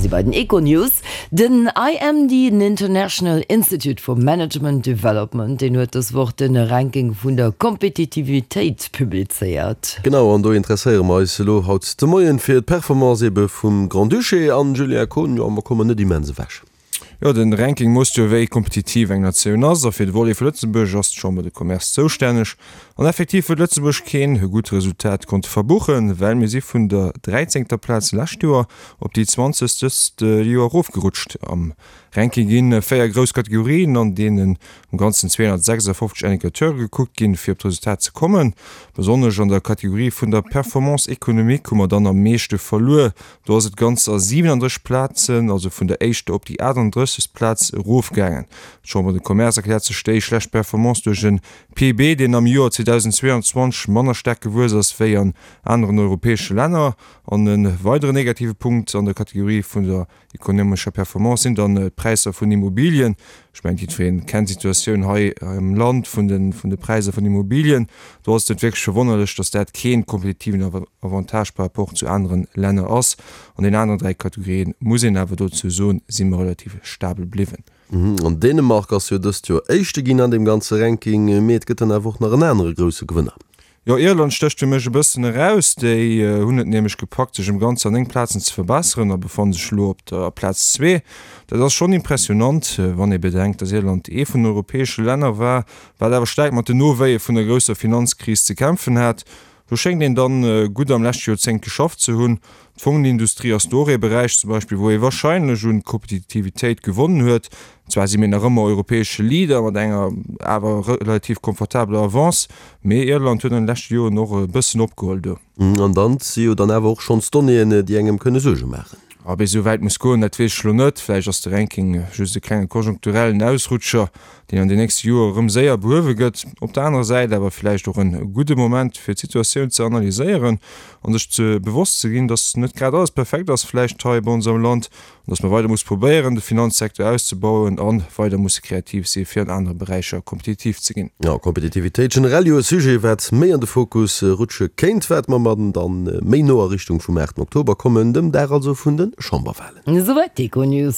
si bei den Econews. Den IMD, den International Institute for Management Development, deen huet dës Woch de Ranking vun der Kompetitivitéit publizéiert. Genau, an do interesséiere mer eis elo haut de Moien fir d'Performance ebe vum Grand-Duché. An, Julien Kohn, jo, mer kommen net immens ewech. Jo, den Ranking moosst jo wéi kompetitiv eng Natioun ass, a fir de Volet vu Lëtzebuerg ass d'Chambre de Commerce zoustänneg. An effektiv huet Lëtzebuerg keen gutt Resultat konnte verbuchen, well mir si vun der dräizéngter Plaz lescht Joer op déi zwanzegst dëst Joer erofgerutscht. Am Ranking ginn 4 grouss Kategorien, an deenen am Ganzen 256 Indicateure gekuckt ginn, fir op d'Resultat ze kommen. Besonnesch an der Kategorie vun der Performance économique hu mer dann am meeschte verluer, Do ass et ganzer 37 Plazen, also vun der éischter op déi 38. Plaz erofgaangen. D'Chambre de Commerce erkläert sech déi schlecht Performance duerch e PIB, deen am Joer 2022 manner staark gewuess ass wéi an aneren europäesche Länner. An e weideren negative Punkt an der Kategorie vun der ekonomescher Performance sinn dann d'Präisser vun Immobilien. Ech mengen, jiddweree kennt d'Situatioun hei am Land vun de vun de Präisser vun Immobilien. Do ass et net wierklech verwonnerlech, datt dat kee kompetitiven Avantage par rapport zu anere Länner ass. An den aneren 3 Kategorien, muss een awer dozou soen, si mer relativ stabel bliwwen. An Dänemark ass jo dëst Joer Éischte ginn an deem ganze Ranking, mee et gëtt dann awer och nach en anere grousse Gewënner. Jo, Irland stécht fir mech e bëssen eraus. Déi hunn et nämlech gepackt, sech ëm ganzer 9 Plazen ze verbesseren a befanne sech elo op der Plaz zwee. Dat ass schonn impressionant, wann ee bedenkt, datt Irland ee vun den europäesche Länner war, wat awer staark mat den Nowéie vun der grousser Finanzkris ze kämpfen hat. Do schéngt een dann gutt am leschte Joerzéngt geschafft ze hunn. D'Fongenindustrie ass do och ee Beräich zum Beispill, wou ee wahrscheinlech un Kompetitivitéit gewonnen huet. Zwar si mir nach ëmmer europäesche Leader mat enger awer relativ komfortabeler Avance, mee Irland huet an de leschte Joren och e bëssen opgeholl do. An dann si jo dann awer och schonns Donnéeën, déi engem kënne Suerge maachen. Ob ee sou wäit muss goen, dat weess ech elo net. Vläicht ass de Ranking just e klenge konjunkturellen Ausrutscher, deen an den nächste Joer erëm séier behuewe gëtt. Op der anerer Säit awer vläicht och en gudde Moment, fir d'Situatioun ze analyséieren an sech ze bewosst ze ginn, dass net grad alles perfekt ass vläicht hei bei ons am Land an dass mer weider musse probéieren, de Finanzsecteur auszebauen a weider musse kreativ si fir an anere Beräicher kompetitiv ze ginn. Jo, Kompetitivitéit generell jo e Sujet, wat méi an de Fokus rutsche kéint, wat mer mer dann méi no a Richtung vum 8 Oktober kommen, dem Dag also vun de Chamberwahlen. Esouwäit d'Econews.